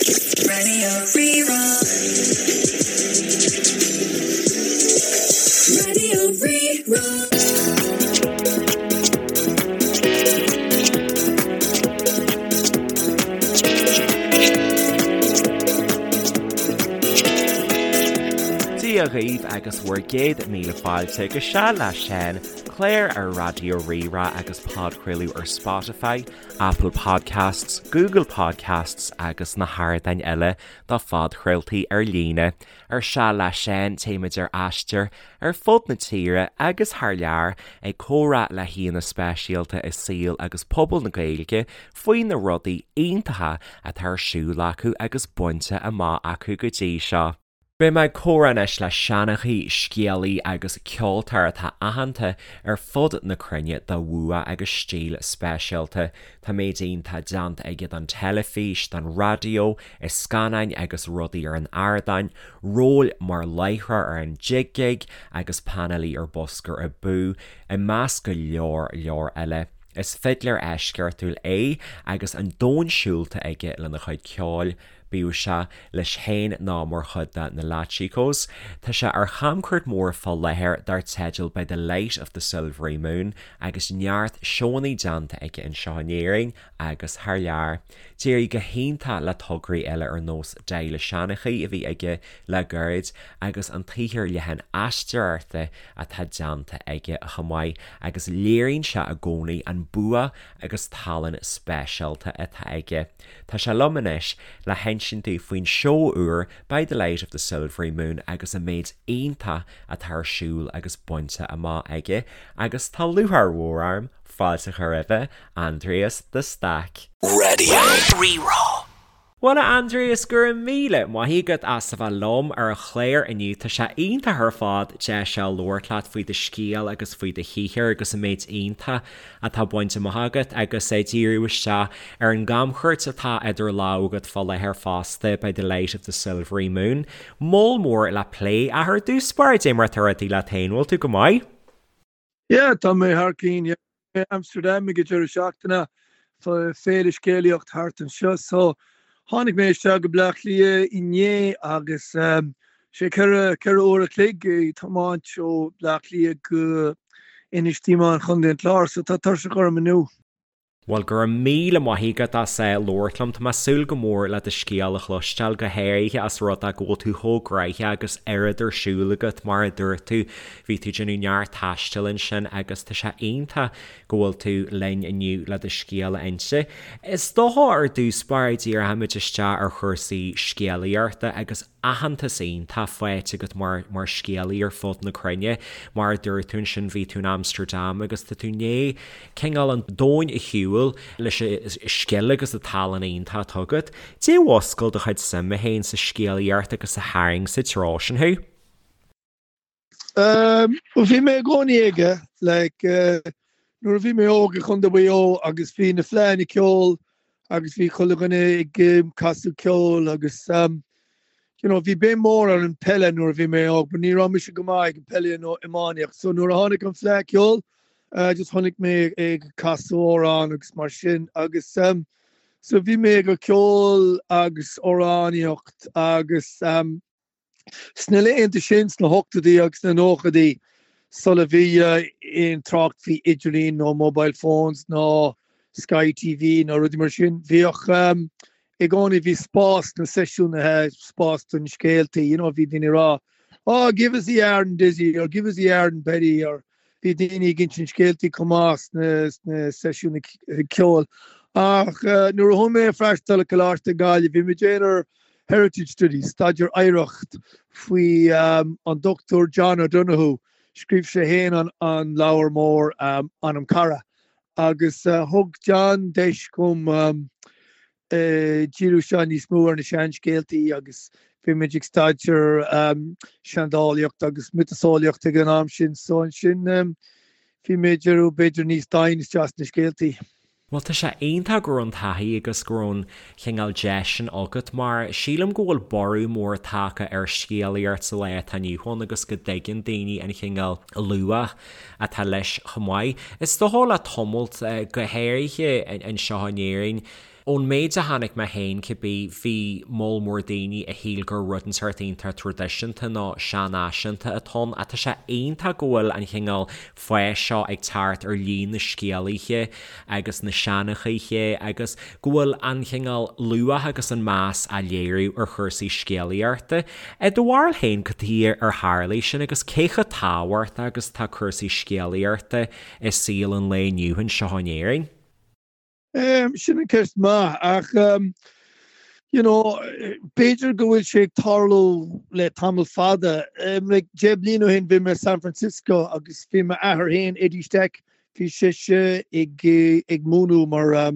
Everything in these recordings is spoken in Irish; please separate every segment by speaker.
Speaker 1: Radio Rí-Rá. Radio Rí-Rá.
Speaker 2: Dia dhaoibh agus bhur gcéad míle fáilte go Seal le Seán, clár ar Raidió Rí-Rá agus podchraoladh ar Spotify, Apple Podcasts, Google Podcasts agus na hardáin eile do phodchraoltaí ar líne. Ar Seal le Seán, téimid ar aistear ar fud na tíre agus thar lear ag comhrá le haíonna speisialta i saol agus pobal na Gaeilge faoi na rudaí iontacha atá ar siúl acu agus bainte amach acu go dtí seo. Beidh mé ag comhrá anois le seanchaí, scéalaí agus ceoltóir atá aitheanta ar fud na cruinne dá bhua agus stíl speisialta. Tá méid iontach déanta aige don teilifís, don raidió, i scannáin agus rudaí ar an ardán, róil mar láithreoir ar an Jig Gig agus painéalaí ar Busker Abú, i measc go leor leor eile. Is fidléir eisceachtúil é agus an domhan siúlta aige lena chuid ceoil. Bíodh sé leis féin nó mar chuid de na Latchikos, tá sé ar chamchuairt mhór fá láthair dar teideal By the Light of the Silvery Moon agus neart seónna déanta aige anseo in Éirinn agus thar lear. D'éirigh go hiontach le tograí eile ar nós Dáil an Seanchaí a bhí aige le gairid agus an tsaothar leathan aisteoireachta atá déanta aige chomh maith agus léiríonn sé i gcónaí an bua agus tallann speisialta atá aige. Tá sé liom anois le hinsint dúinn faoin seó úr By the Light of the Silvery Moon agus an méid iontach atá ar siúl agus bainte amach aige agus tá lúcháir mhór orm fáilte a chur roimhe, Aindrias de Staic.
Speaker 1: Radio Rí-Rá.
Speaker 2: Bhuel a Aindrias, go raibh míle maith agat as a bheith liom ar an chlár inniu. Tá sé iontach ar fad deis a labhairt leat faoi do scéal agus faoi do shaothar agus an méid iontach atá bainte amach agat agus díriú isteach ar an gcamchuairt atá idir lámha agat fá láthair fosta, By the Light of the Silvery Moon. Moll mór le plé ach ar dtús báire, dé mar atá rudaí leat féin, bhfuil tú go maith?
Speaker 3: Yeah, tá mé thar cinn, yeah. Bhí mé i Amsterdam ag an deireadh seachtaine, féile scéalaíocht thart anseo, so tháinig mé isteach go Bleá Cliath inné agus sé 4 uair a chloig ag tiomáint ó Bleá Cliath go Inis Díomáin Chontae an Chláir, so tá tuirseach orm inniu.
Speaker 2: Bhuel, go raibh míle maith agat as labhairt liom. Tá mé ag súil go mór le do scéal a chloisteáil, go háirithe as rud é go bhfuil tú chomh gnoitheach agus oiread ar siúl agat, mar a dúirt tú, bhí tú ag déanamh neart taistil ansin agus tá sé iontach go bhfuil tú linn inniu le do scéal a inse. Is dócha ar dtús báire díreoimid isteach ar chúrsaí scéalaíochta agus aitheantas iontach faighte agat mar mar scéalaí ar fud na cruinne. Mar a dúirt tú ansin bhí tú in Amsterdam agus tá tú i ndiaidh cineál an domhain a shiúl leis an scil agus an tallann iontach atá agat. Dé mhuscail do chuid suime féin sa scéalaíocht agus a tharraing sa treo sin thú?
Speaker 3: Bhuel bhí mé i gcónaí aige like nuair a bhí mé óg i Chontae Mhaigh Eo agus bhí na fleadhanna ceoil agus bhí chuile dhuine ag casadh ceoil agus you know bhí béim mór ar an peile nuair a bhí mé óg but ní raibh mise go maith ag an peile nó iománaíocht so nuair a tháinig an fleadh ceoil just chonaic mé ag casadh amhrán agus mar sin agus so bhí mé ag ceol agus amhránaíocht agus Sna laethanta sin, sna hochtóidí agus sna nóchaidí, sula bhí aon trácht faoi idirlíon nó mobile phones nó Sky TV nó rudaí mar sin, bhíodh i gcónaí, bhí spás sna seisiúnaithe, spás don scéaltaí, you know, bhí daoine ag rá, oh, give us the yarn Dizzy or give us the yarn Betty or Bhí daoine ag insint scéaltaí chomh maith sna seisiúin ceoil. Ach nuair a chuaigh mé ag freastal ar Coláiste Gaillimh, bhí mé ag déanamh Heritage Studies, staidéar oidhreacht, faoi an Dr John O'Donoghue. Scríobh sé féin an leabhar mór Anam Cara. Agus thug John deis dhom díriú isteach níos mó ar na seanscéaltaí agus bhí muid ag staidéar seandálaíocht agus miotaseolaíocht ag an am sin so ansin bhí mé ag díriú b'fhéidir níos doimhne isteach sna scéaltaí.
Speaker 2: Bhuel tá sé iontach go raibh an taithí agus go raibh an chineál deis sin agat mar sílim go bhfuil borradh mór tagtha ar scéalaíocht sa lá atá inniu ann agus go dtuigeann daoine an chineál luach atá leis chomh maith. Is dócha le tamalt, go háirithe anseo in Éirinn. Ón méid a chonaic mé féin cibé, bhí moll mór daoine a shíl gur rud inteacht iontach traidisiúnta nó seanfhaiseanta atá ann ach tá sé iontach go bhfuil an chineál fáis seo ag teacht ar líon na scéalaithe agus na seanchaithe agus go bhfuil an chineál luach agus an meas á léiriú ar chúrsaí scéalaíochta. I do bharúil féin, cad chuige ar tharlaigh sin agus cé chomh tábhachtach agus atá cúrsaí scéalaíochta i saol an lae inniu anseo in Éirinn?
Speaker 3: Sin an ceist maith ach you know b'fhéidir go bhfuil sé ag tarlú le tamall fada. Like 10 bliain ó shin bhí mé i San Francisco agus bhí m'athair féin, Eddie Stack, bhí seisean ag ag múineadh mar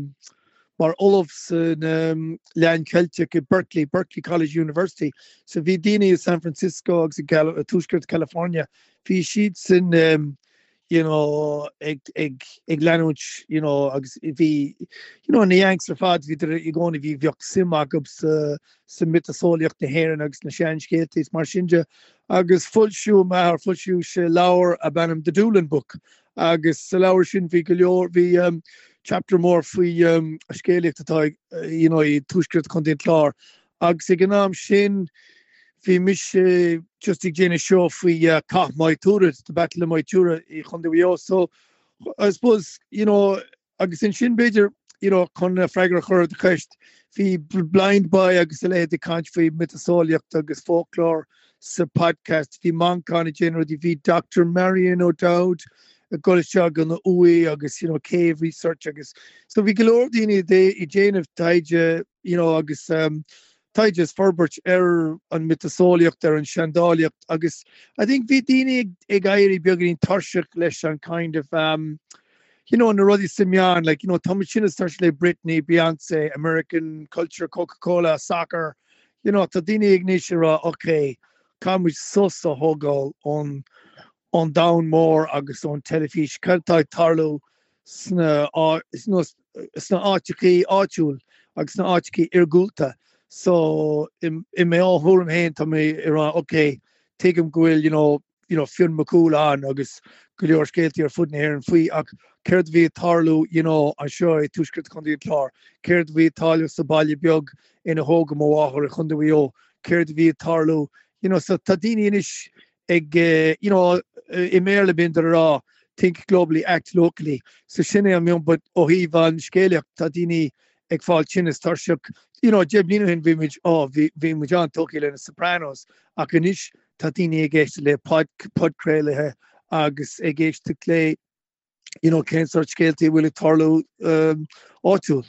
Speaker 3: mar ollamh san Léann Ceilteach i Berkeley, Berkeley College University. So bhí daoine i San Francisco agus i Tuaisceart California, bhí siadsan you know, ag, ag, ag leanúint, you know, agus bhí, you know, na Yanks ar fad, bhíodar i gcónaí, bhí, bheadh suim acu sa, sa miotaseolaíocht na hÉireann agus na seanscéalta is mar sin de. Agus foilsíodh m'athair, foilsíodh sé leabhar ab ainm The Doolin Book agus sa leabhar sin bhí go leor, bhí um, chapter mór faoi um, scéalaíocht atá ag, you know, i tuaisceart Chontae an Chláir Agus ag an am sin bhí mise just ag déanamh seó faoi Cath Maigh Tuathail, the Battle of Maigh Tuathail i Chontae Mhaigh Eo. So I suppose, you know, agus ansin b'fhéidir, you know, chun freagra a chur ar do cheist, bhí Blindboy agus a leithéid ag caint faoi miotaseolaíocht agus folklore sa podcast, bhí Manchán ag déanamh rudaí, bhí Dr Marion O'Dowd ag dul isteach go na uaigh agus, you know, cave research agus so bhí go leor daoine ag déanamh taighde you know, agus taighde is forbairt ar an miotaseolaíocht, ar an seandálaíocht agus I think bhí daoine ag, ag éirí beagáinín tuirseach leis an kind of um, you know, na rudaí sna meáin, like, you know, tá muid tinn is tuirseach le Britney, Beyonce, American culture, Coca-Cola, soccer, you know, tá daoine ag anois ag rá, okay, caithfidh muid sos a thógáil ón ón domhan mór agus ón teilifís, cad atá ag tarlú sna sna áiteachaí áitiúil agus sna áiteachaí iargúlta. So i mo thuairim féin tá mé ag rá ok, tuigim go bhfuil you know you know Fionn Mac Cumhaill ann agus go leor scéaltaí ar fud na hÉireann faoi ach céard a bhí ag tarlú you know anseo i tuaisceart Chontae an Chláir, céard a bhí ag tarlú sa baile beag ina thógadh mo mháthair i Chontae Mhaigh Eo, céard a bhí ag tarlú you know so tá daoine anois ag you know i mBéarla bíonn ag rá think globally act locally so sin é an meon but ó thaobh an scéalaíocht tá daoine ag fáil tinn is tuirseach you know 10 bliain ó shin bhí muid oh bhí bhí muid an-tógtha le na Sopranos ach anois tá daoine ag éisteacht le pod podchraolaithe agus ag éisteacht le you know, cén sórt scéaltaí a bhfuil ag tarlú áitiúil.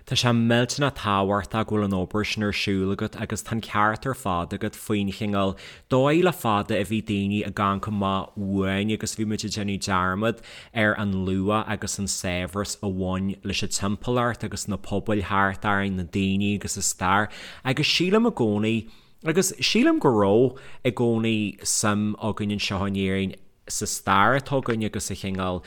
Speaker 2: Tá sé millteanach tábhachtach go bhfuil an obair sin ar siúl agat agus tá an ceart ar fad agat faoin chineál dóigh le fada a bhí daoine ag amharc amach uainn agus bhí muid ag déanamh dearmad ar an luach agus an saibhreas a bhain leis an timpeallacht agus na pobail thart orainn, na daoine agus a stair agus sílim i gcónaí Agus sílim go raibh i gcónaí suim againn anseo in Éirinn sa stair atá againn agus sa chineál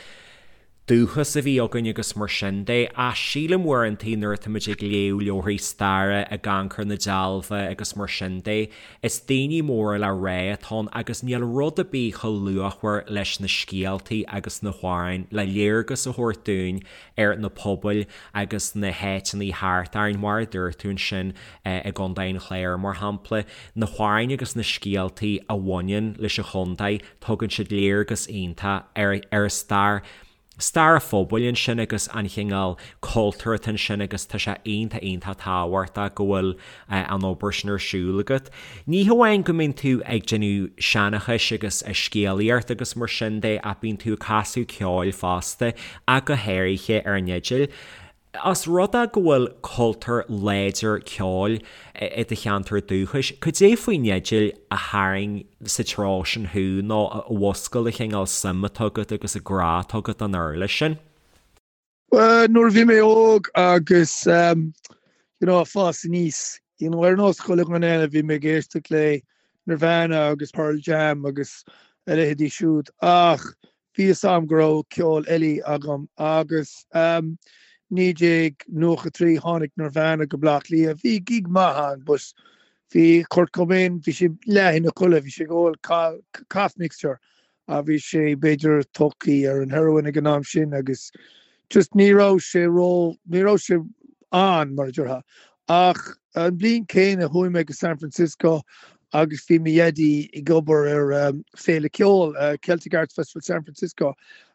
Speaker 2: dúchas a bhí againn agus mar sin de. Ach sílim uaireantaí nuair atáimid ag léamh leabharthaí staire, ag amharc ar na dealbha agus mar sin de, is daoine móra le rá atá ann agus níl rud ar bith chomh luachmhar leis na scéaltaí agus na hamhráin le léargas a thabhairt dúinn ar na pobail agus na háiteanna thart orainn, mar a dúirt tú ansin. i gContae an Chláir, mar shampla, na hamhráin agus na scéaltaí a bhaineann leis an chontae, tugann siad léargas iontach ar ar a stair, stair an phobail ansin agus an chineál cultúir atá ansin agus tá sé iontach iontach tábhachtach go bhfuil an obair sin ar siúl agat. Ní hamháin go mbíonn tú ag déanamh seanchais agus scéalaíocht agus mar sin de ach bíonn tú ag casadh ceoil fosta ach go háirithe ar an fhidil. Os rud é go bhfuil cultúr láidir ceoil i do cheantar dúchais, cad é faoin fhidil a tharraing sa treo sin thú nó a mhúscail an chineál suim atá agat agus an grá atá agat don uirlis sin?
Speaker 3: Bhuel, nuair a bhí mé óg agus you know ag fás aníos, you know ar nós chuile dhuine eile bhí mé ag éisteacht le Nirvana agus Pearl Jam agus a leithéidí siúd ach Bhí fhios a'm go raibh ceol eile agam agus 1993 tháinig Nirvana go Bleá Cliath. Bhí gig maith ann but bhí Kurt Cobain, bhí sé leath ina chodladh, bhí sé ag ól cough mixture a bhí sé b'fhéidir tógtha ar an heroin ag an am sin agus just ní raibh sé ró, ní raibh sé. ann, mar a déarfá. Ach an bhliain céanna chuaigh mé go San Francisco agus bhí mo dhaidí ag obair ar féile ceoil, Celtic Arts Festival San Francisco,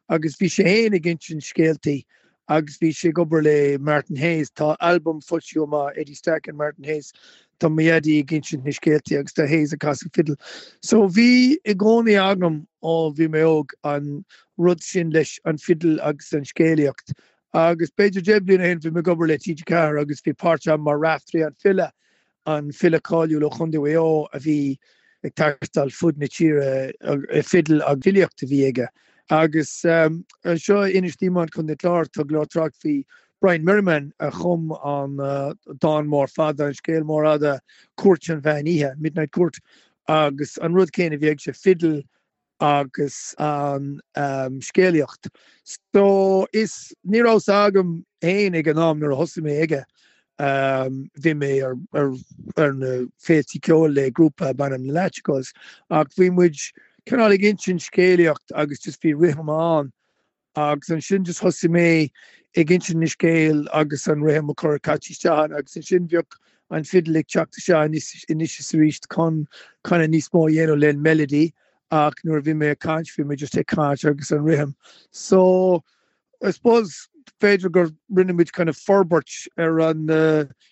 Speaker 3: agus bhí sé féin ag insint scéaltaí agus bhí sé ag obair le Martin Hayes. Tá albam foilsithe amach, Eddie Stack and Martin Hayes. Tá mo dhaidí ag insint na scéaltaí agus tá Hayes ag casadh fidil. So bhí i gcónaí agam ó bhí mé óg an rud sin leis an fidil agus an scéalaíocht. Agus b'fhéidir 10 bliana ó shin bhí mé ag obair le TG4 agus bhí páirt agam mar Raiftearaí an File an file cáiliúil ó Chontae Mhaigh Eo a bhí ag taisteal fud na tíre, fidil agus filíocht a bhí aige. Agus anseo in Inis Díomáin, Contae an Chláir, tá go leor trácht faoi Brian Merriman a chum an dán mór fada, an scéal mór fhada Cúirt an Mheán Oíche, Midnight Court, agus an rud céanna a bhí aige, fidil agus an scéalaíocht. So is, ní raibh 's agam féin ag an am nuair a thosaigh mé aige, bhí mé ar ar na féiltí ceoil le grúpa ab ainm na Latchikos ach bhí muid cineál ag insint scéalaíocht agus just bhí rithim ann Agus ansin just thosaigh mé ag insint na scéal agus an rithim a chur caite isteach ann agus ansin bheadh an fidil ag teacht isteach anois is arís chun kind of níos mó a dhéanamh le melody ach nuair a bhí mé ag caint bhí mé just ag caint agus an rithim. So I suppose b'fhéidir gur rinne muid kind of forbairt ar an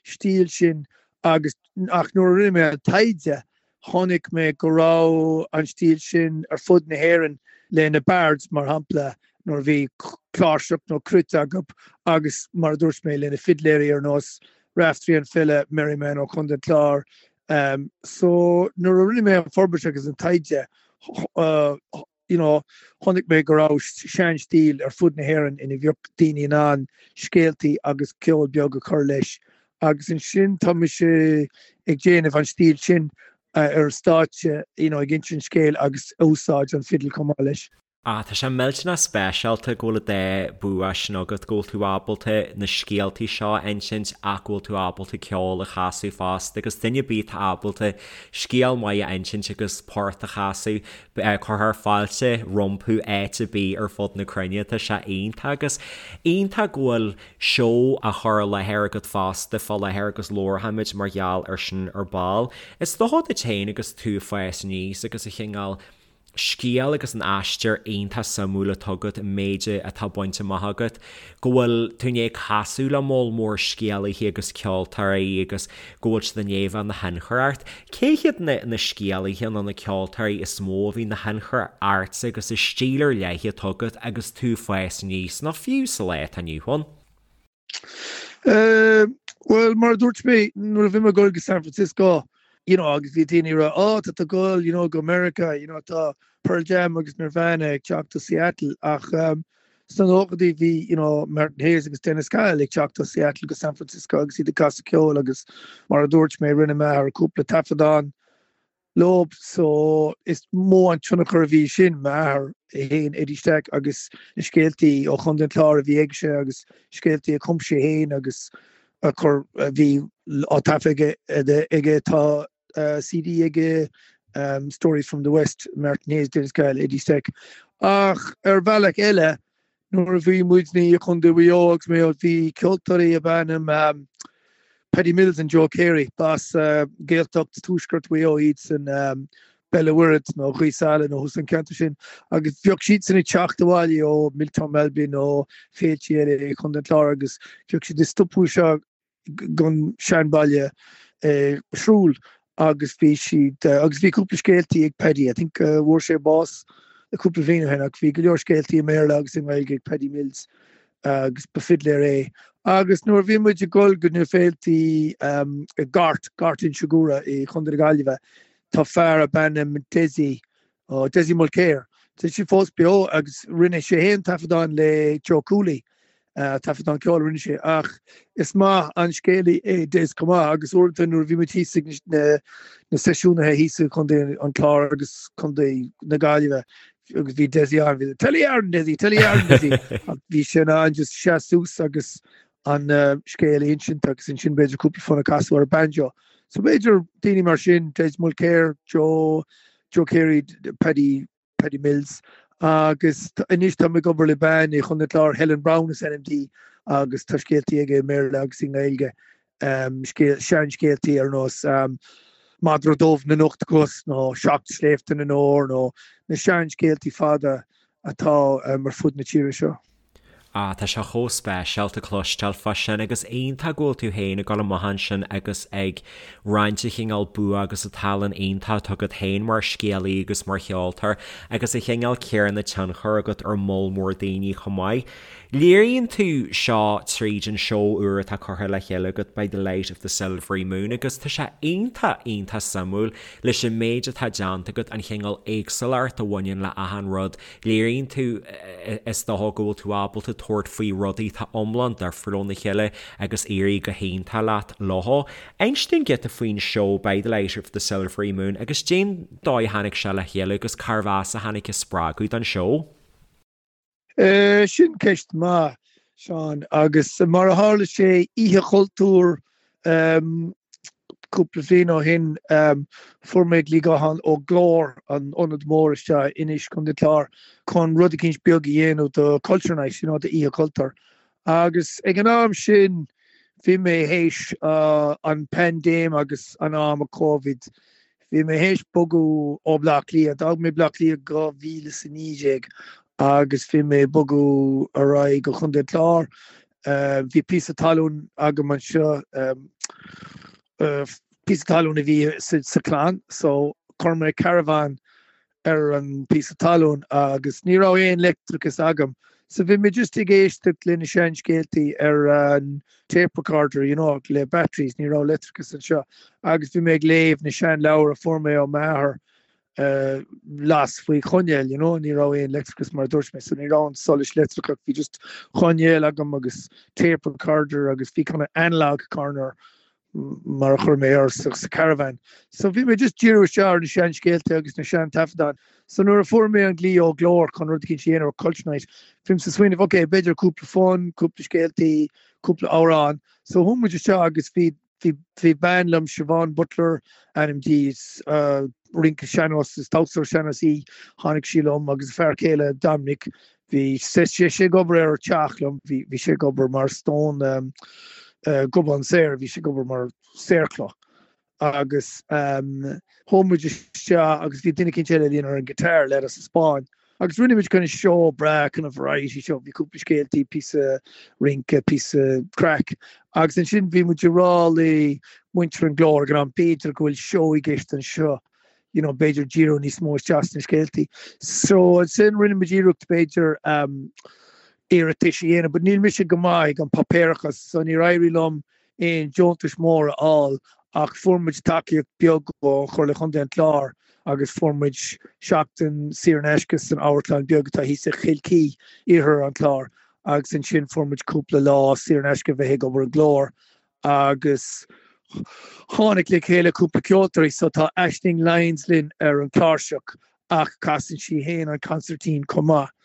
Speaker 3: stíl sin agus ach nuair a rinne mé an taighde Chonaic mé go raibh an stíl sin ar fud na hÉireann le na bards, mar shampla, nuair a bhí cláirseach nó cruit acu agus, mar a dúirt mé, le na fidléirí ar nós Raftery an file, Merriman ó Chontae an Chláir. So nuair a rinne mé an forbairt agus an taighde, you know, chonaic mé go raibh sean-stíl ar fud na hÉireann ina bheadh daoine in ann scéaltaí agus ceol beag a chur leis agus ansin tá mise ag déanamh an stíl sin ar stáitse, you know, ag insint scéil agus úsáid an fidil chomh maith leis.
Speaker 2: Ah, tá sé millteanach speisialta go bhfuil an dá bua sin agat, go bhfuil tú ábalta na scéaltaí seo a insint ach go bhfuil tú ábalta ceol a chasadh fosta agus duine ar bith atá ábalta scéal maith a insint agus port a chasadh, Cuirfear fáilte rompu áit ar bith ar fud na cruinne. Tá sé iontach agus iontach go bhfuil seó á chur i láthair agat fosta fá láthair agus labharfaimid mar gheall ar sin ar ball. Is dócha duit féin agus tú ag fás aníos agus an chineál scéal agus an aistear iontach suimiúil atá agat, an méid atá bainte amach agat, go bhfuil tú i ndiaidh casadh le moll mór scéalaithe agus ceoltóirí agus go bhfuil siad i ndiaidh a bheith ina thionchar ort. Cé hiad na na scéalaithe nó na ceoltóirí is mó a bhí ina thionchar ortsa agus an stíl ar leith atá agat agus tú ag fás aníos, nó fiú sa lá atá inniu ann?
Speaker 3: Bhuel, mar a dúirt mé, nuair a bhí mé ag dul go San Francisco, you know, agus bhí daoine ag rá, oh, tá tú ag dul, you know, go Meiriceá, you know, tá Pearl Jam agus Nirvana ag teacht ó Seattle, ach Sna nóchaidí bhí you know Martin Hayes agus Dennis Cahill ag teacht ó Seattle go San Francisco agus iad ag casadh ceoil agus mar a dúirt mé rinne m'athair cúpla taifeadán leo so is mó an tionchar a bhí sin, m'athair féin Eddie Stack agus na scéaltaí ó Chontae an Chláir a bhí aige agus scéaltaí a chum sé féin agus a chur a bhí á taifeadh aige tá CD aige Stories from the West, Martin Hayes, Dennis Cahill, Eddie Stack. Ach ar bhealach eile, nuair a bhí muidne i Contae Mhaigh Eo agus mé bhí ceoltóirí ab ainm Paddy Mills and Joe Carey, b'as Gaeltacht Tuaisceart Mhaigh Eo iadsan, Béal an Mhuirthead nó Gaoth Sáile nó thuas an ceantar sin, agus bheadh siadsan ag teacht abhaile ó Miltown Malbin nó féiltí eile i Contae an Chláir agus bheadh siad ag stopadh seo gon seanbhaile i Shrule agus bhí siad, agus bhí cúpla scéaltaí ag Paddy, I think bhfuair sé bás cúpla bhliain ó shin ach bhí go leor scéaltaí i mBéarla agus i nGaeilge ag Paddy Mills agus ba fidléir é. Agus nuair a bhí muid ag dul go na féiltí i nGort, Gort Inse Guaire i Chontae na Gaillimhe, tá fear ab ainm Dessie Ó, Dessie Mulcair. Tá sé fós beo agus rinne sé féin taifeadán le Joe Cooley, taifeadán ceoil a rinne sé, ach is maith an scéalaí é Des chomh maith agus uaireanta nuair a bhí muid thíos ag na seisiúnaithe thíos i gContae an Chláir agus Contae na Gaillimhe agus bhí Dessie ann, bhí Tell a yarn Dessie, tell a yarn Dessie ach bhí sé in ann just seas suas agus an scéal a insint agus ansin b'fhéidir cúpla fonn a chasadh ar banjo. So b'fhéidir daoine mar sin, Des Mulcair, Joe, Joe Carey, Paddy, Paddy Mills agus anois táim ag obair le bean i Chontae an Chláir, Helen Browne is ainm di. agus tá scéaltaí aige i mBéarla agus i nGaeilge, seanscéaltaí ar nós Madra Dubh na nOcht gCos nó Seacht Sléibhte na nÓr nó na seanscéaltaí fada atá ar fud na tíre seo.
Speaker 2: Ah, tá sé chomh speisialta cloisteáil fá sin agus iontach go bhfuil tú féin ag dul amach ansin agus ag roinnt an chineál bua agus an tallann iontach atá agat féin mar scéalaí agus mar cheoltóir agus an chineál céanna tionchar agat ar moll mór daoine chomh maith. Léiríonn tú seo tríd an seó úr atá curtha le chéile agat By the Light of the Silvery Moon agus tá sé iontach, iontach suimiúil leis an méid atá déanta agat, an chineál éagsúlacht a bhaineann le achan rud Léiríonn tú, is dócha, go bhfuil tú ábalta tabhairt faoi rudaí atá iomlán difriúil óna chéile agus éirí go hiontach leat leo. Inis dúinn giota faoin seó By the Light of the Silvery Moon agus cén dóigh a tháinig sé le chéile agus cárbh as a tháinig an spreagadh don seó?
Speaker 3: Sin ceist maith, Seán, agus mar a tharla sé, Oíche Chultúir Cúpla bliain ó shin fuair mé glaoch gutháin ó Glór, an ionad mór isteach in Inis, Contae an Chláir, chun rud eicínt beag a dhéanamh do Culture Night, you know, d'Oíche Chultúir. Agus ag an am sin bhí mé théis an paindéim agus an am a Covid, bhí mé théis bogadh ó Bleá Cliath, d'fhág mé Bleá Cliath 2019 agus bhí mé ag bogadh ar aghaidh go Contae an Chláir. Bhí píosa talún agam anseo, píosa talún a bhí sa chlann, so chuir mé caravan ar an píosa talún agus ní raibh aon leictreachas agam, so bhí mé just ag éisteacht le na seanscéaltaí ar an tape recorder, you know, le batteries, ní raibh leictreachas anseo, agus bhí mé ag léamh na seanleabhair a fuair mé ó m'athair las faoi choinneal, you know, ní raibh aon leictreachas mar a dúirt mé, so ní raibh an solais leictreachach, bhí just coinneal agam agus tape recorder agus bhí kind of analog corner mar a chuir mé air sa caravan. So bhí mé just díriú isteach ar na seanscéalta agus na sean-taifeadáin. So nuair a fuair mé an glaoch ó Glór chun rud eicínt a dhéanamh ar Culture Night, bhí mise ag smaoineamh, ok, b'fhéidir cúpla fonn, cúpla scéaltaí, cúpla amhrán. So chuaigh muid isteach agus bhí Bhí bean liom, Siobhán Butler ainm di, is rince sean-nós, is damhsóir sean-nós í, tháinig sí liom agus a fear céile Dominic, bhí sé ag obair ar teach liom, bhí sé ag obair mar stone gobán saor, bhí sé ag obair mar saorchloch agus chuaigh muid isteach agus bhí duine eicínt eile linn ar an guitar, leaid as an Spáinn. Agus rinne muid kind of seó breá, kind of variety show, bhí cúpla scéaltaí, píosa rince, píosa craic. Agus ansin bhí muid ag rá le muintir an Glór ag an am, b'fhéidir go bhfuil seó i gceist anseo, you know, b'fhéidir díriú níos mó isteach sna scéaltaí. So ansin rinne muid iarracht b'fhéidir um, iarratais a dhéanamh, but níl mise go maith ag an páipéarachas, so níor éirigh liom aon deontais mór a fháil ach fuair muid tacaíocht beag ó Chomhairle Chontae an Chláir agus fuair muid seachtain saor in aisce san amharclann beag atá thíos i Chill Chaoi, iarthar an Chláir agus ansin fuair muid cúpla lá saor in aisce bheith ag obair i nGlór agus tháinig le chéile cúpla ceoltóirí so tá Aisling Lyons linn ar an cláirseach ach casann sí féin an consairtín chomh maith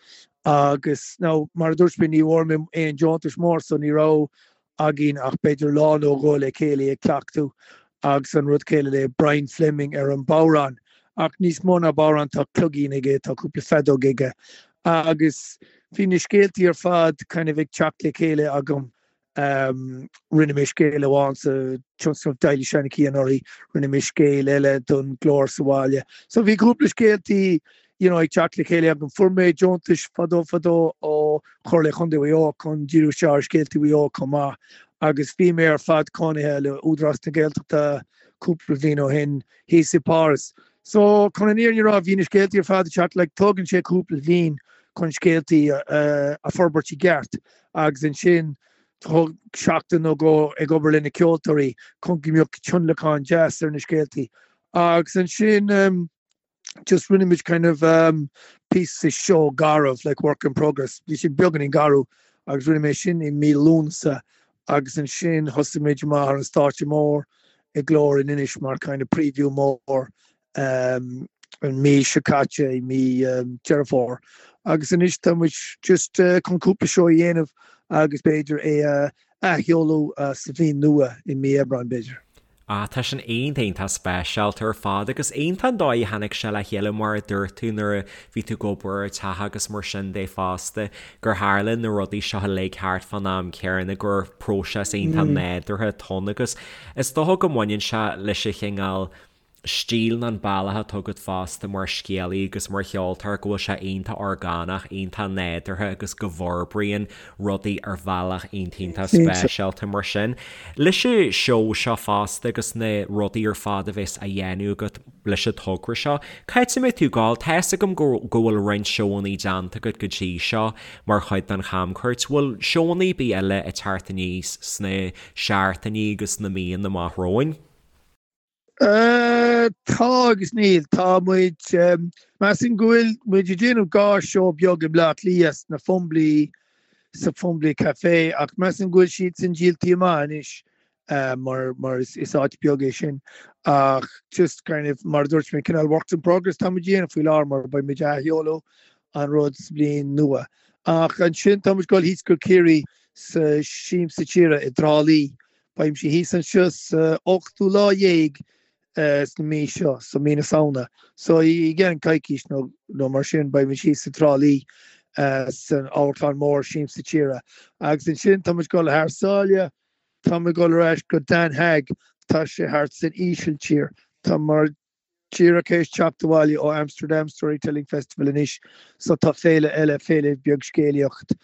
Speaker 3: agus now mar a dúirt mé ní bhfuair mé aon deontais mór so ní raibh againn ach b'fhéidir lá nó dhó le chéile ag cleachtadh agus an rud céanna le Brian Fleming ar an bodhrán. Ach níos mó ná bodhrán tá cloigín aige, tá cúpla feadóg aige agus bhí na scéaltaí ar fad kind of ag teacht le chéile agam. Rinne mé scéal amháin sa tionscnamh Teaghlaigh Seanchaí anuraidh, rinne mé scéal eile don Glór sa bhaile. So bhí cúpla scéaltaí you know, ag teacht le chéile agam. Fuair mé deontais fadó fadó ó Chomhairle Chontae Mhaigh Eo chun díriú isteach ar scéaltaí Mhaigh Eo chomh maith agus bhí mé ar fad cónaithe le Údarás na Gaeltachta cúpla bliain ó shin thíos i bPáras. So chun an fhírinne a rá bhí na scéaltaí ar fad ag teacht like tógann sé cúpla bliain chun scéaltaí a forbairt i gceart agus ansin thóg seachtain nó dhó ag obair le na ceoltóirí chun go mbeadh tionlacán deas ar na scéaltaí agus ansin um, just rinne muid kind of um, píosa seó garbh like work in progress. Bhí sé beagáinín garbh agus rinne mé sin i mí Lúnasa agus ansin thosaigh muid amach ar an stáitse mór i Glór in Inis mar kind of preview mór um, an mí seo caite i mí um, Deireadh Fómhair. Agus anois tá muid just uh, chun cúpla seó a dhéanamh agus b'fhéidir é a athsheoladh uh, sa bhliain nua i mí Aibreáin b'fhéidir.
Speaker 2: Ah, tá sin iontach iontach speisialta ar fad agus iontach an dóigh a tháinig sé le chéile mar a dúirt tú nuair a bhí tú ag obair ar teach agus mar sin de fosta, gur tharla na rudaí seo uilig thart fán am céanna, gur próiseas iontach nádúrtha atá ann agus is dócha go mbaineann sé leis an chineál stíl nó an bealach atá agat fosta mar scéalaí agus mar cheoltóir go bhfuil sé iontach orgánach, iontach nádúrtha agus go bhforbraíonn rudaí ar bhealach iontach iontach speisialta mar sin. Leis an seó seo fosta agus na rudaí ar fad a bheas á dhéanamh agat leis an togra seo, cá háit a mbeidh tú ag gabháil? Tá fhios agam go go bhfuil roinnt seóanna déanta agat go dtí seo mar chuid den chamchuairt. Bhfuil seóanna ar bith eile ag teacht aníos sna seachtainí agus sna míonna amach romhainn?
Speaker 3: Tá agus níl. Tá muid, measaim go bhfuil muid ag déanamh dhá seó beag i mBleá Cliath sna Fumbally, sa Fumbally Café ach measaim go bhfuil siad sin díoltaí amach anois mar mar is is áit beag é sin ach just kind of mar a dúirt mé cineál works in progress tá muid ag déanamh faoi láthair mar beidh muid ag athsheoladh an rud sa bhliain nua. Ach ansin tá muid ag dul thíos go Ciarraí sa Siamsa Tíre i dTrá Lí Beimse thíos anseo sa ochtú lá dhéag sna mí seo, so mí na Samhna. So i gceann coicís nó nó mar sin beimid thíos sa Trá Lí san amharclann mór Siamsa Tíre. Agus ansin tá muid ag dul thar sáile, tá muid ag dul ar ais go Den Haag, tá sé thart san Ísiltír. Tá mar Díreach théis teacht abhaile ó Amsterdam Storytelling Festival anois so tá féile eile, féile beag scéalaíocht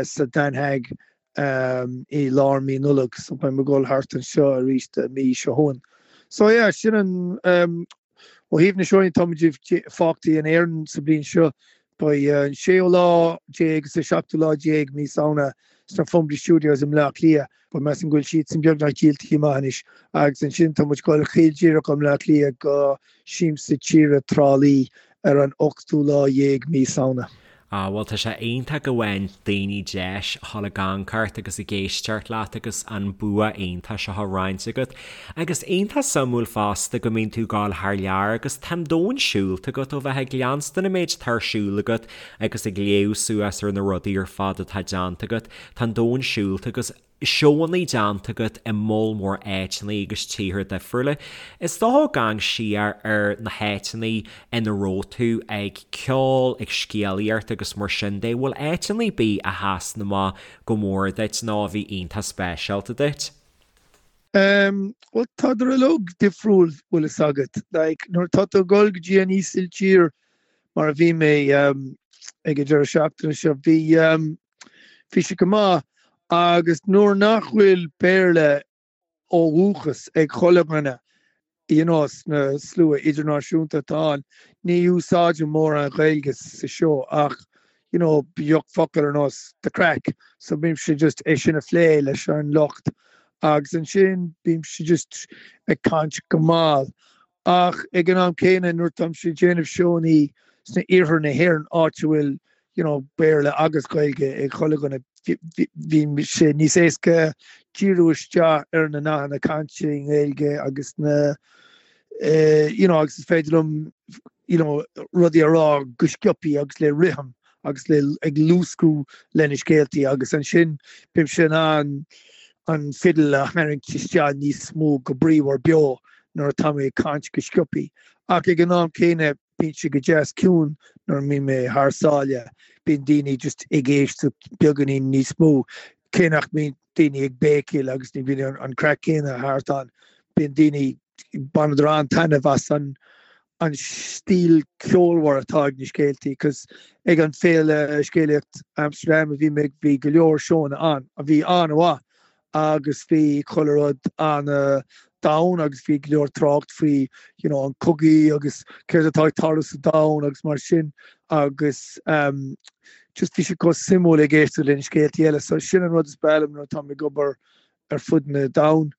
Speaker 3: sa Den Haag i lár mí Nollag so beidh mé ag dul thart anseo arís an mí seo chugainn. So yeah, sin an ó thaobh na seóanna tá muid fágtaí in Éirinn sa bliain seo Beidh an séú lá déag agus an seachtú lá déag mí Samhna sna Fumbally Studios i mBleá Cliath, but measaim go bhfuil siadsan beagnach díoltaí amach anois, agus ansin tá muid ag dul caol díreach ó mBleá Cliath go Siamsa Tíre Trá Lí ar an ochtú lá dhéag mí Samhna.
Speaker 2: Ah bhuel tá sé iontach go bhfaigheann daoine deis a dhul ag amharc ort agus ag éisteacht leat agus an bua iontach seo á roinnt agat. Agus iontach suimiúil fosta go mbíonn tú ag gabháil thar lear agus tá an domhan siúlta agat ó bheith ag leanstan an méid atá ar siúl agat agus ag léamh suas ar na rudaí ar fad atá déanta agat, tá an domhan siúlta agus seóanna déanta agat i moll mór áiteanna agus tíortha difriúla. Is dócha ag amharc siar ar na háiteanna ina raibh tú ag ceol, ag scéalaíocht agus mar sin de, bhfuil áiteanna ar bith a sheasann amach go mór duit nó a bhí iontach speisialta duit?
Speaker 3: Em, bhuel tádar uilig difriúil, bhfuil fhios agat. Like, nuair atá tú ag dul go dtí an Ísiltír, mar a bhí mé em, ag an deireadh seachtaine seo, bhí em, bhí sé go maith agus nuair nach bhfuil Béarla ó dhúchas ag chuile dhuine, you know, sna slua idirnáisiúnta atá ann, ní úsáidim mórán Gaeilge sa seó ach, you know, bíodh focal ar nós the craic, so bímse just é sin a phlé leis an lucht agus ansin bímse just ag caint go mall. Ach ag an am céanna nuair táimse ag déanamh seónnaí sna iarthar na hÉireann áit a bhfuil you know, Béarla agus Gaeilge ag chuile dhuine, bíonn sé níos éasca díriú isteach ar na nathanna cainte i nGaeilge agus na you know, agus is féidir liom you know, rudaí a rá go sciobthaí agus le rithim agus le ag luascadh le na scéaltaí agus ansin bímse in ann an fidil a tharraingt isteach níos mó go bríomhar beo nuair atá mé ag caint go sciobthaí. Ach ag an am céanna bíonn sé go deas ciúin nuair a mbíonn mé thar sáile, bíonn daoine just ag éisteacht beagáinín níos mó, cé nach mbíonn daoine ag béicíl agus ní bhíonn an craic céanna thart ann, bíonn daoine, baineadar an-taitneamh as an an stíl ceolmhar atá ag na scéaltaí 'cause ag an Féile Scéalaíocht Amsterdam a bhí mé bhí go leor seónna ann a bhí an-mhaith agus bhí chuile rud an-domhain agus bhí go leor trácht faoi you know an cogaí agus céard atá ag tarlú sa domhan agus mar sin agus um, just bhí sé chomh suimiúil ag éisteacht le na scéaltaí eile so sin an rud is breá liom nuair atá mé ag obair ar fud na domhan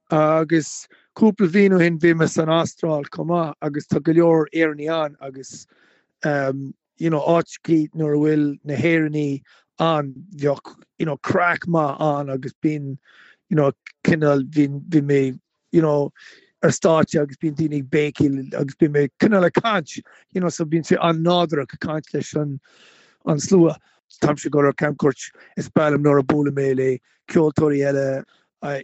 Speaker 3: agus cúpla bhliain ó shin bhí mé san Astráil chomh maith agus tá go leor Éireannaigh ann agus um, you know, áiteachaí nuair a bhfuil na hÉireannaigh ann, bheadh, you know, craic maith ann agus bíonn, you know, cineál, bhí, bhí mé, you know, ar stáitse agus bíonn daoine ag béicíl agus bíonn mé cineál ag caint, you know, so bíonn sé an-nádúrach ag caint leis an, an slua. Táimse ag dul ar camchuairt, is breá liom nuair a buailim mé le ceoltóirí eile.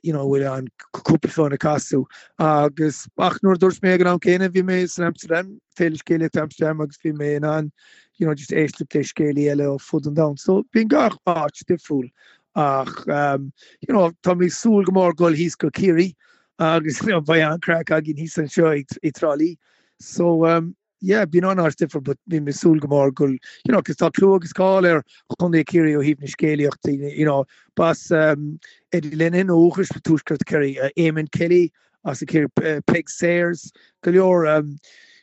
Speaker 3: you know, bhfuil an cúpla fonn ag casadh agus ach nuair a dúirt mé ag an am céanna bhí mé san Amsterdam, Féile Scéalaíochta Amsterdam agus bhí mé in ann you know, just éisteacht le scéalaí eile ó fud an domhain. So bíonn gach áit difriúil ach um, you know, tá mé ag súil go mór dul thíos go Ciarraí agus you know, beidh an-craic againn thíos anseo i dTrá Lí. So um, yeah, bíonn an-áit difriúil but bím ag súil go mór go you know, 'cause tá clú agus cáil ar Chontae Chiarraí ó thaobh na scéalaíochta, you know, b'as um, Eddie Lenihan ó dhúchas tuaisceart Chiarraí, uh, Eamon Kelly as Ciarraí, uh, Peig Sayers, go leor um,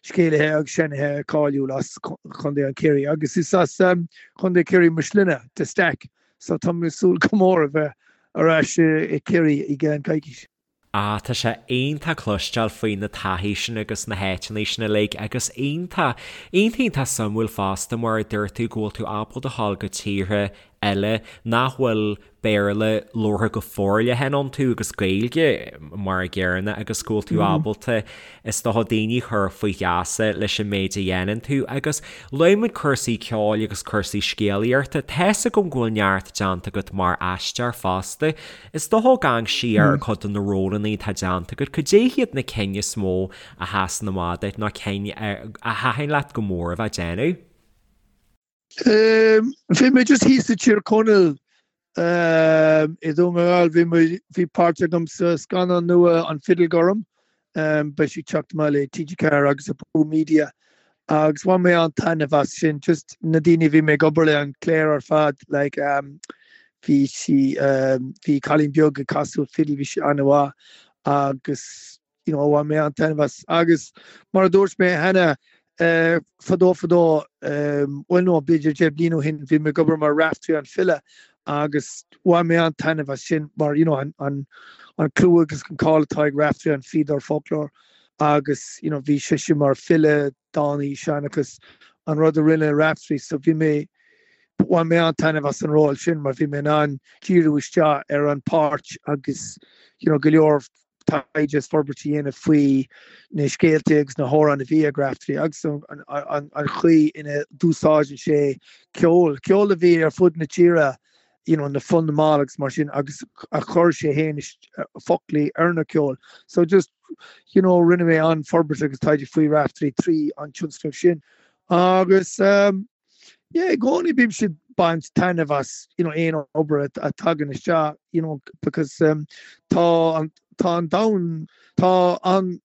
Speaker 3: scéalaithe agus seanchaithe cáiliúil as Chontae an Chiarraí agus is as um, Chontae Chiarraí mo shloinne, de Staic, so tá mé ag súil go mór a bheith ar ais i Ciarraí i gceann coicís.
Speaker 2: Ah, tá sé iontach cloisteáil faoi na taithí sin agus na háiteanna sin uilig agus iontach, iontach iontach suimiúil fosta mar a dúirt tú go bhfuil tú ábalta a ghabháil go tíortha eile nach bhfuil Béarla labhartha go forleathan iontu agus Gaeilge mar a gcéanna agus go bhfuil tú ábalta is dócha daoine a chur faoi gheasa leis an méid a dhéanann tú agus luaigh muid cúrsaí ceoil agus cúrsaí scéalaíochta, tá's agam go bhfuil neart déanta agat mar aisteoir fosta. Is dócha ag amharc siar ar chuid de na rólanna atá déanta agat, cad é hiad na cinn is mó a sheasann amach duit nó cinn a thaitin leat go mór a bheith ag déanamh?
Speaker 3: Bhí mé just thíos i Tír Chonaill i Dún na nGall, bhí mé, bhí páirt agam sa scannán nua An Fidil Gorm, beidh sé ag teacht amach le TG4 agus Abú Media agus bhain mé an-taitneamh as sin, just na daoine a bhí mé ag obair le, an chliar ar fad, like bhí sí, bhí cailín beag ag casadh fidil, bhí sí an-mhaith agus you know bhain mé an-taitneamh as. Agus mar a dúirt mé cheana, fadó fadó, bhuel no, b'fhéidir 10 bliain ó shin, bhí mé ag obair mar Raiftearaí an file agus bhain mé an-taitneamh as sin mar you know an an an clú agus an cáil atá ag Raiftearaí an Fíodóir Foclóir agus you know bhí seisean mar file, dánaí, seanchas, an rud a rinne Raiftearaí so bhí mé bhain mé an-taitneamh as an ról sin mar bhí mé in ann díriú isteach ar an páirt agus you know go leor taighde is forbairt a dhéanamh faoi na scéalta agus na hamhráin a bhí ag Raiftearaí agus an chaoi ina d'úsáideann sé ceol, ceol a bhí ar fud na tíre, you know, na Fonn na mball agus mar sin agus a chuir sé féin foclaí ar na ceol. So just, you know, rinne mé an-forbairt agus taighde faoi Raiftearaí trí an tionscnamh sin. Agus um, Yeah, i gcónaí bímse ag baint taitneamh as, you know, aon obair a tagann isteach, you know, because um, tá an, tá an domhan, tá an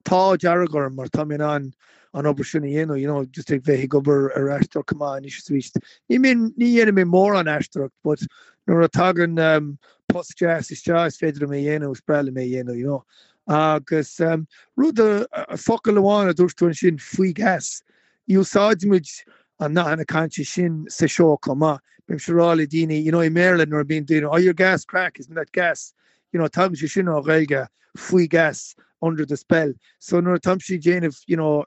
Speaker 3: t-ádh dearg orm mar tá mé in ann an obair sin a dhéanamh, you know, just ag bheith ag obair ar aisteoireacht chomh maith anois is arís. Ní mbíonn, ní dhéanaim mé mórán aisteoireacht, but nuair a tagann um, post deas isteach is féidir liom é a dhéanamh, is breá liom é a dhéanamh, you know. Agus um, rud a, a, focal amháin a dúirt tú ansin, faoi gheasa. Úsáidimid an nathanna cainte sin sa seó chomh maith. Bímse ag rá le daoine, you know, i mBéarla nuair a bíonn daoine, oh you're gas craic, isn't that gas? You know, tagann sé sin ó Ghaeilge, faoi gheasa, under the spell. So nuair atáimse ag déanamh, you know,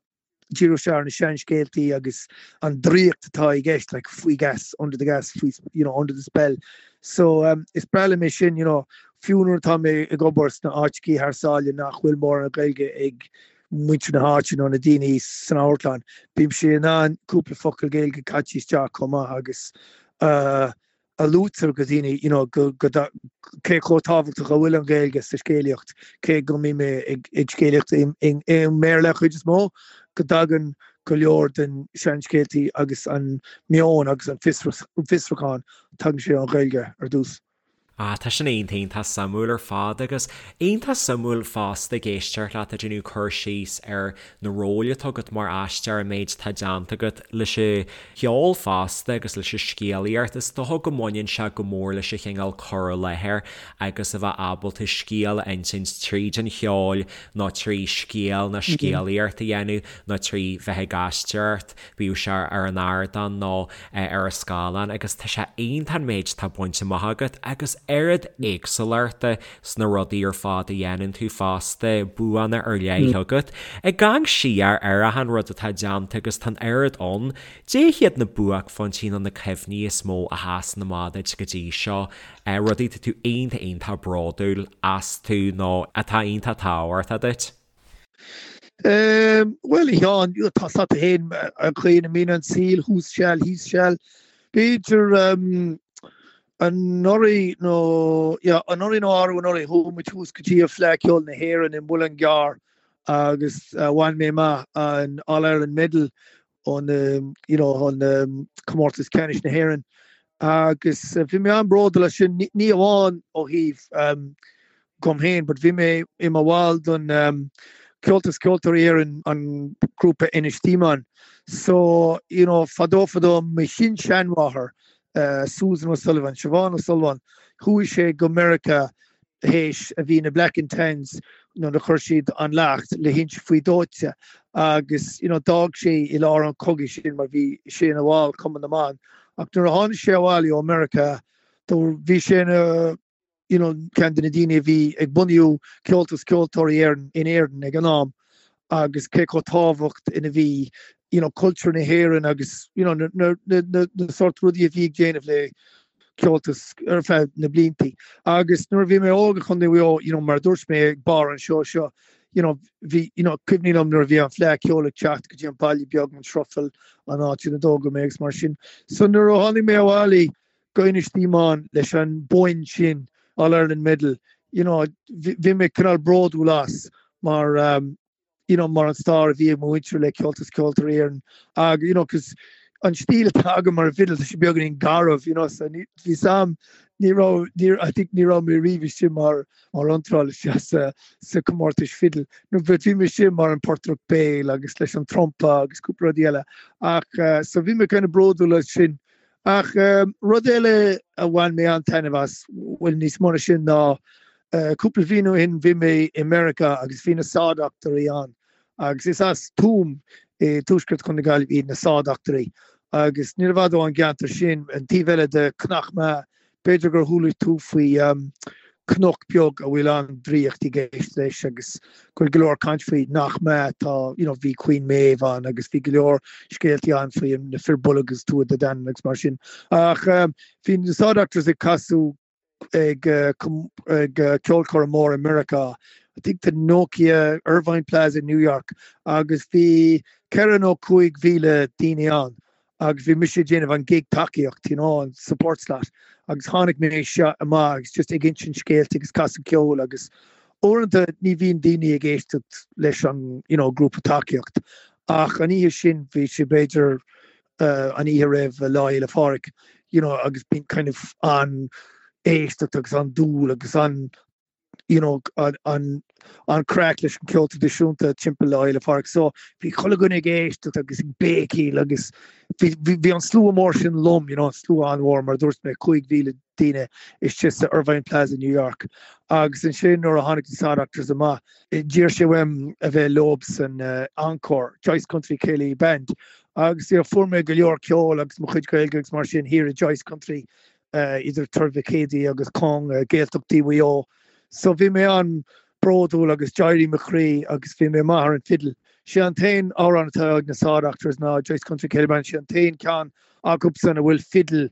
Speaker 3: díriú isteach ar na seanscéaltaí agus an draíocht atá i gceist, like faoi gheasa, under the gas, faoi, you know, under the spell. So um, is breá liom é sin, you know, fiú nuair atá mé ag obair sna áiteachaí thar sáile nach bhfuil mórán Gaeilge ag muintir na háite nó na daoine san amharclann, bímse in ann cúpla focal Gaeilge caite isteach chomh maith agus a luaitear go daoine you know go go cé chomh tábhachtach a bhfuil an Ghaeilge sa scéalaíocht, cé go mbím mé ag ag scéalaíocht i i mBéarla chuid is mó, go dtagann go leor den seanscéaltaí agus an meon agus an fiosrúchán, tagann sé ón Ghaeilge ar dtús.
Speaker 2: Ah, tá sin iontach, iontach suimiúil ar fad agus iontach suimiúil fosta ag éisteacht leat ag déanamh cur síos ar na róil atá agat mar aisteoir, an méid atá déanta agat leis an cheol fosta agus leis an scéalaíocht. Is dócha go mbaineann sé go mór leis an chineál cur i láthair agus a bheith ábalta scéal a insint tríd an cheol nó trí scéal nó scéalaíocht a dhéanamh nó trí bheith ag aisteoireacht, bíodh sé ar an ardán nó ar an scáileán agus tá sé iontach an méid atá bainte amach agat agus oiread éagsúlachta sna rudaí ar fad a dhéanann tú fosta, buanna ar leith agat. Ag amharc siar ar achan rud atá déanta agus tá an oiread ann, cad é hiad na buaicphointí nó na cuimhní is mó a sheasann amach duit go dtí seo, rudaí atá tú iontach iontach bródúil astu nó atá iontach tábhachtach duit?
Speaker 3: Bhuel, a Sheáin, tá a fhios agat féin an chaoi ina mbíonn an saol, thuas seal, thíos seal. B'fhéidir. Anuraidh nó, yeah, anuraidh nó arú anuraidh, chuaigh muid thuas go dtí an Fleadh Ceoil na hÉireann i Muileann gCearr agus bhain mé amach an All Ireland Medal ón, you know, ón Comórtas Ceannais na hÉireann agus bhí mé an-bhródúil as sin, ní amháin ó thaobh dom féin, but bhí mé i mo bhall don Comhaltas Ceoltóirí Éireann, an grúpa Ennistymon. So, you know, fadó fadó, mo shin-seanmháthair, Susan O'Sullivan, Siobhán O'Sullivan, chuaigh sé go Meiriceá théis a bhí na Black and Tans nuair a chuir siad an leacht le hInse Faoi Dóite agus, you know, d'fhág sé i lár an chogaidh sin mar bhí sé ina bhall Cumann na mBan. Ach nuair a tháinig sé abhaile ó Meiriceá, bhí sé ina you know, ceann de na daoine a bhí ag bunú Comhaltas Ceoltóirí Éireann in Éirinn ag an am agus cé chomh tábhacht ina bhí, you know, cultúr na hÉireann agus, you know, na, na, na, na, na sórt rudaí a bhí ag déanamh le Comhaltas ar feadh na bliantaí. Agus nuair a bhí mé óg i Chontae Mhaigh Eo, you know, mar a dúirt mé ag barr an seó seo, you know, bhí, you know, cuimhní liom nuair a bhí an Fleadh Ceoil ag teacht go dtí an baile beag, an Sruthail, an áit ina dtógadh mé agus mar sin. So nuair a tháinig mé abhaile, go Ennistymon leis an bonn sin, All Ireland Medal, you know, bhí mé cineál bródúil as mar, you know, mar an stair a bhí ag mo mhuintir le Comhaltas Ceoltóirí Éireann ag, you know, cos an stíl atá agam mar an bhfidil, tá sé beagáinín garbh, you know, so ní, bhí sam, ní raibh, ní, I think ní raibh mé riamh istigh mar, mar iontráil isteach sa, sa comórtais fidil. No, but bhí mé istigh mar an portaireacht béil agus leis an trumpa agus cúpla rudaí eile. Ach, uh, so bhí mé kind of bródúil as sin. Ach rud eile a bhain mé an-taitneamh as, bhuel níos mó ná sin, ná cúpla bhliain ó shin bhí mé i Meiriceá agus bhí na Saw Doctors ann agus is as Tuaim i dtuaisceart Chontae na Gaillimhe iad na Saw Doctors agus níor i bhfad ón gceantar sin, an taobh eile de Cnoc Meá, B'fhéidir gur chuala tú faoi cnoc beag a bhfuil an-draíocht i gceist leis agus go bhfuil go leor caint faoi nach mbeadh tá you know bhí Queen Maeve ann agus bhí go leor scéaltaí ann faoi na Fir Bolg agus Tuatha Dé Danann agus mar sin. Ach bhí na Saw Doctors ag casadh ag ag ceolchoirm mór i Meiriceá I think the Nokia Irvine Plaza in New York agus bhí 4 nó 5,000 daoine ann agus bhí mise ag déanamh an gig tacaíocht, you know, an support slot agus tháinig mé seo amach agus just ag insint scéalta agus casadh ceoil agus uaireanta ní bhíonn daoine ag éisteacht leis an, you know, grúpa tacaíocht ach an oíche sin bhí sé b'fhéidir uh, an oíche roimh Lá Fhéile Phádraig, you know, agus bíonn kind of an éisteacht agus an dúil agus an you know, an an craic leis an ceol traidisiúnta timpeall Lá Fhéile Pádraig. So bhí chuile dhuine ag éisteacht agus ag béicíl agus bhí, bhí, bhí an slua mór sin liom, you know, an slua an-mhór mar a dúirt mé 5,000 daoine istigh sa Irvine Plaza New York. Agus ansin nuair a tháinig na Saw Doctors amach, d'iarr sé uaim a bheith leob san uh, encore, Joyce Country Céilí Band. Agus you know, fuair mé go leor ceoil agus mo chuid Gaeilge agus mar sin thiar i Joyce Country idir Tuar Mhic Éadaigh agus Cong, Gaeltachtaí Mhaigh Eo. So bhí mé an-bhródúil agus d'éirigh mo chroí agus bhí mé maith ar an fidil. Sé an t-aon amhrán atá ag na Saw Doctors ná Joyce Country Céilí Band, sé an t-aon ceann acubsan a bhfuil fidil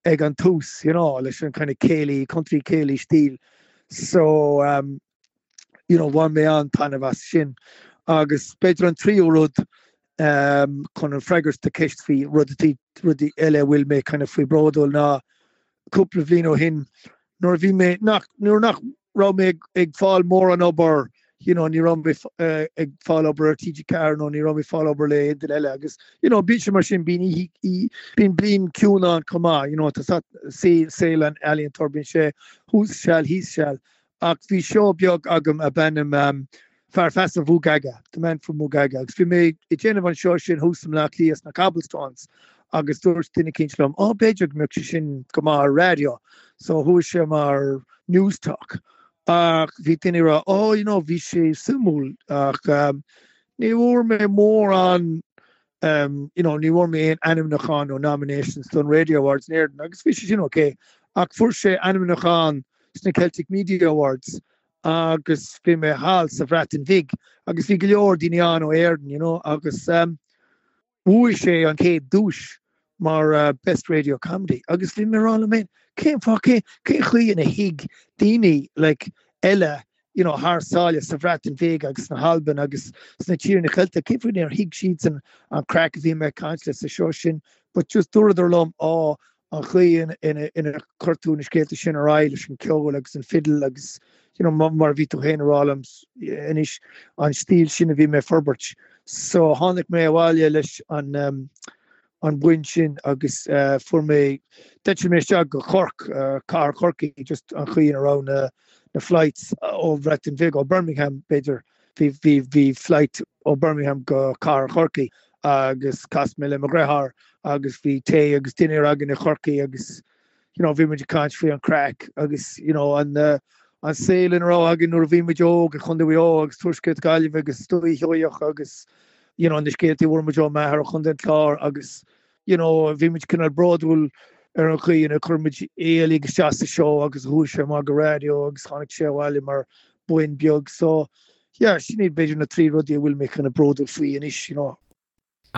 Speaker 3: ag an tús, you know, leis an kind of céilí, country céilí stíl. So um, you know, bhain mé an-taitneamh as sin. Agus b'fhéidir an tríú rud um, chun an freagairt do cheist faoi rudaí rudaí eile a bhfuil mé kind of faoi bródúil ná cúpla bhliain ó shin nuair a bhí mé nach nuair nach raibh mé ag, ag fáil mórán obair you know, ní raibh mé uh, ag fáil obair ar TG4 nó ní raibh mé fáil obair le aon duine eile agus you know, bíonn sé mar sin bíonn bíonn bliain ciúin ann chomh maith you know, tá saol an ealaíontóir bíonn sé thuas seal thíos seal Ach bhí seó beag agam ab ainm Fear Feasa Mhugaga, The Man from Mugaga, agus bhí mé ag déanamh an seó sin thuas i mBleá Cliath sna Cobblestones agus dúirt duine eicínt liom, 'Ó, b'fhéidir go mbeadh sé sin go maith ar raidió. So chuaigh sé mar Newstalk. Ach bhí daoine ag rá, 'Ó, you know, bhí sé suimiúil ach ní bhfuair mé mórán you know, ní bhfuair mé aon ainmniúchán nó nominations don Radio Awards in Éirinn agus bhí sé sin ok ach fuair sé ainmniúchán sna Celtic Media Awards agus bhí mé thall sa Bhreatain Bhig agus bhí go leor daoine ann ó Éirinn, you know, agus um, bhuaigh sé an chéad duais mar uh, Best Radio Comedy agus bhí mé ag rá liom féin cén fáth cén cén chaoi ina thuig daoine like eile you know, thar sáile sa Bhreatain Bhig agus sna hAlbain agus sna tíortha Ceilteacha, cén fáth nár thuig siadsan an craic a bhí mé ag caint le sa seó sin, but just dúradar liom, á, an chaoi ina chuir tú na scéalta sin ar aghaidh leis an ceol agus an fidil agus you know mar a bhí tú féin a rá liom anois an stíl sin a bhí mé ag forbairt. So tháinig mé abhaile leis an an boinn sin agus fuair mé d'eitil mé isteach go Cork, cathair Chorcaí, just an chaoi ina raibh na na flights ó Bhreatain Bheag, ó Birmingham b'fhéidir, bhí bhí bhí flight ó Birmingham go cathair Chorcaí agus chas mé le mo dheartháir agus bhí tae agus dinnéar againn i Chorcaí agus you know bhí muid ag caint faoi an craic agus you know an an saol ina raibh againn nuair a bhí muid óg i Chontae Mhaigh Eo agus Tuaisceart Gaillimhe agus Dúiche Sheoigheach agus you know na scéaltaí a fuair muid ó m'athair ó Chontae an Chláir agus you know bhí muid cineál bródúil ar an chaoi ina chuir muid é uilig isteach sa seó agus chuaigh sé amach go raidió agus tháinig sé abhaile mar boinn beag so yeah sin iad b'fhéidir na trí rudaí a bhfuil mé kind of bródúil faoi anois you know.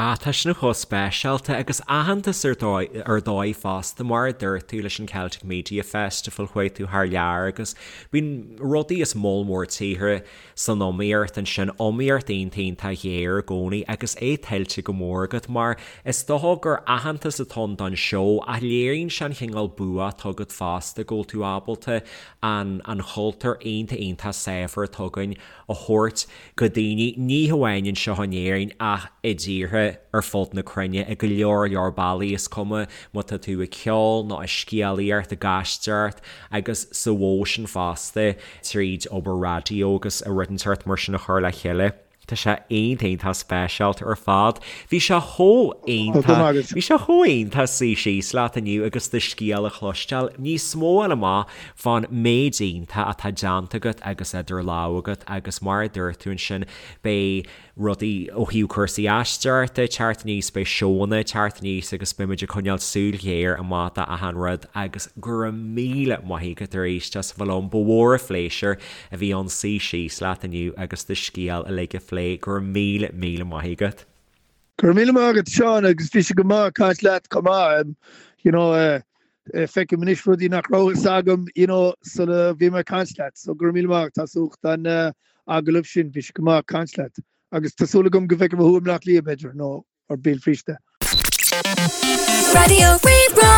Speaker 2: Ah, tá sin chomh speisialta agus aitheantas ar dóigh ar dóigh fosta mar a dúirt tú leis an Celtic Media Festival chuaigh tú thar lear agus bíonn rudaí is moll mór tíortha san iomaíocht ansin, iomaíocht iontach iontach ghéar i gcónaí agus é tuillte go mór agat mar is dócha gur aitheantas atá ann don seó ach léiríonn sé an chineál bua atá agat fosta go bhfuil tú ábalta an an chultúr iontach iontach saibhir atá againn a thabhairt go daoine, ní hamháin anseo in Éirinn ach i dtíortha ar fud na cruinne i go leor leor bealaí, is cuma má tá tú ag ceol nó ag scéalaíocht, ag aisteoireacht agus sa mhodh sin fosta tríd obair raidió agus rud inteacht mar sin a chur le chéile. Tá sé iontach iontach speisialta ar fad. Bhí sé chomh iontach, bhí sé chomh iontach suí síos leat inniu agus do scéal a chloisteáil, níos mó a fháil amach fán méid iontach atá déanta agat agus idir lámha agat agus mar a dúirt tú ansin beidh rudaí ó thaobh cúrsaí aisteoireachta ag teacht aníos, beidh seónna ag teacht aníos agus beidh muid ag coinneáil súil ghéar amach do achan rud agus go raibh míle maith agat arís as a bheith liom. Ba mhór an phléisiúr a bhí ann suí síos leat inniu agus do scéal uilig a phlé. Go raibh míle míle maith agat.
Speaker 3: Go raibh míle maith agat Seán agus bhí sé go maith caint leat chomh maith. You know, feicim anois rudaí nach raibh fhios agam you know, sula bhí mé ag caint leat. So go raibh míle maith agat as ucht an agallamh sin, bhí sé go maith caint leat. Agus tá súil agam go bhfeicfidh mé thú i mBleá Cliath b'fhéidir, nó ar Béal Feirste.
Speaker 1: Raidió Rí-Rá.